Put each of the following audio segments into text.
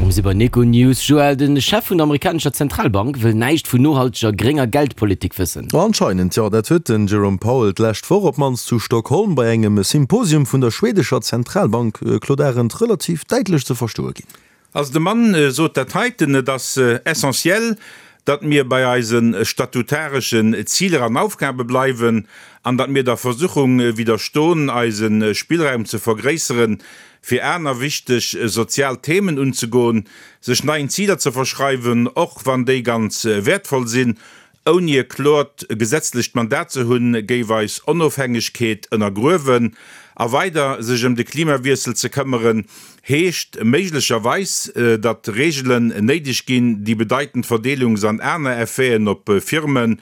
Mir si bei Econews. Joël, de Chef vun der amerikanescher Zentralbank wëll näischt vun nohalteger grénger Geldpolitik wëssen. Anscheinend jo, dat huet den Jerome Powell d'lescht Woch op d'mannst zu Stockholm bei engem Symposium vun der schwedescher Zentralbank, Claude Arend, relativ däitlech ze verstoe ginn. Also de Mann sot dat heiten, Et ass essentiell, datt mir bei eise statutareschen Ziler an Aufgabe bleiwen an datt mir der Versuchung widderston, eise Spillraum ze vergréisseren, fir aner wichteg sozial Themen unzegoen, sech neien Ziler ze verschreiwen, och wann déi ganz wäertvoll sinn, ouni e kloert gesetzlecht Mandat ze hunn, géif eis Onofhängegkeet ënnergruewen. A weider sech ëm de Klimawiessel ze këmmeren, heescht méiglecherweis, datt Reegelen néideg ginn, déi bedeitend Verdeelungs an aner Effeten op Firmen,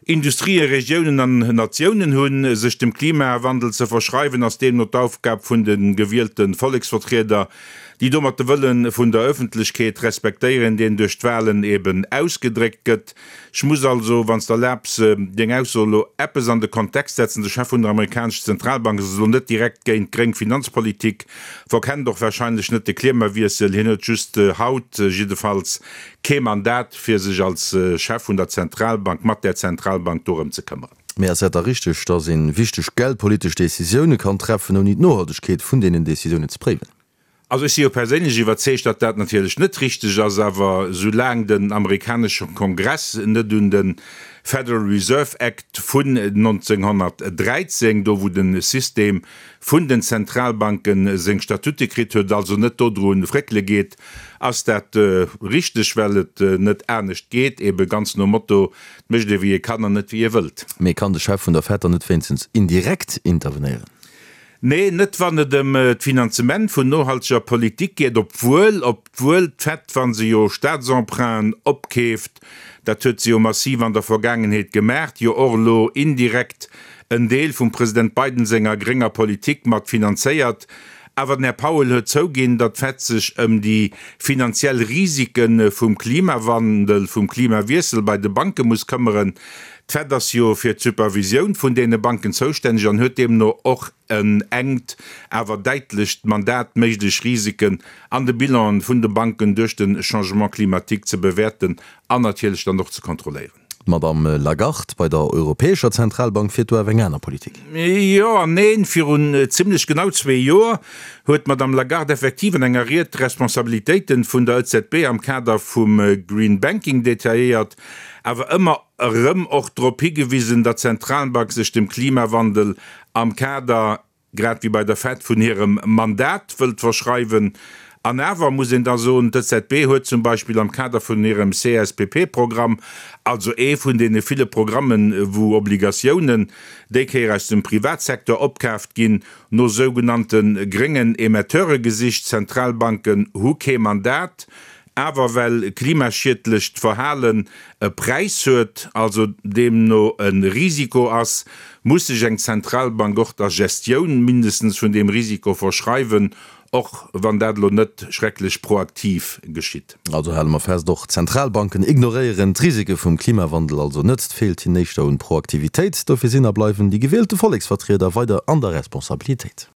Industrien, Regiounen an Natiounen hunn. Sech dem Klimawandel ze verschreiwen, ass deemno d'Aufgab vun de gewielte Volleksvertrieder, déi domat de Wëlle vun der Ëffentlechkeet respektéieren, deen duerch d'Walen eben ausgedréckt gëtt. Ech muss also, wann s de erlaabs, deng Ausso elo eppes an de Kontext setzen, De Chef vun der amerikanescher Zentralbank ass elo net direkt géint gréng Finanzpolitik, verkennt och warscheinlech net de Klimawiessel, hien huet just haut jiddefalls kee Mandat, fir sech als Chef vun der Zentralbank mat där Zentralbank dorëm ze këmmeren. Mee ass et da richteg, datt ee wichteg geldpolitesch Decisioune kann treffen, ouni d'Nohaltegkeet vun deenen Decisiounen ze préiwen? Also ech si jo perséinlech iwwerzeegt, datt dat natierlech net richteg ass. Awer soulaang den amerikanesche Kongress net un de Federal Reserve Act vun 1913, do wou de System vun den Zentralbanke seng Statute kritt huet, also net dodru fréckele geet, ass dat richteg, well et net anescht geet, ebe ganz nom Motto, et mécht ee wéi ee kann an net wéi ee wëllt. Mee kann de Chef vun der Fed dann net wéinstens indirekt intervenéieren? Nee, net wann et ëm d'Finanzement vun nohalteger Politik geet, obwuel, obwuel d'Fed, wa se jo Staatsemprunten opkeeft, dat huet se jo massiv an der Vergaangenheet gemaacht, jo och elo indirekt en Deel vum President Biden senger grénger Politik mat finanzéiert. Awer den Här Powell huet zouginn, datt d'Fed sech ëm déi finanziell Risike vum Klimawandel, vum Klimawiessel bei de Banke muss këmmeren. D'Fed ass jo fir d'Supervisioun vun deene Banken zoustänneg an huet deemno och en enkt, awer däitlecht Mandat, méiglech Risiken an de Bilanen vun de Banken duerch de Changement climatique ze bewäerten an natierlech dann och ze kontrolléieren. D'Madame Lagarde bei der Europäescher Zentralbank fiert do awer eng aner Politik. Jo an neen. Virun zimlech genau zwee Joer huet d'Madame Lagarde effektiv an enger Ried d'Responsabilitéiten vun der EZB am Kader vum Green Banking detailléiert, awer ëmmer erëm och drop higewisen, datt d'Zentralbank sech dem Klimawandel am Kader grad wéi bei der Fed, vun hirem Mandat wëllt verschreiwen. An awer muss een da soen, d'EZB huet zum Beispill am Kader vun hirem CSPP-Programm, also ee vun deene ville Programmen, wou Obligatiounen déi Kéier aus dem Privatsecteur opkaaft ginn, no sougenannte gréngen Emetteure gesicht. Zentralbanken hu kee Mandat, Awer well klimaschiedlecht Verhalen e Präis huet, also deemno e Risiko ass, muss sech eng Zentralbank och der Gestioun mindestens vun deem Risiko verschreiwen, och wann dat elo net schrecklech proaktiv geschitt. Also hale mer fest, och Zentralbanken ignoréieren d'Risike vum Klimawandel also net. Et feelt hinnen éischter un Proaktivitéit. Dofir sinn a bleiwen déi gewielte Volleksvertrieder weider an der Responsabilitéit.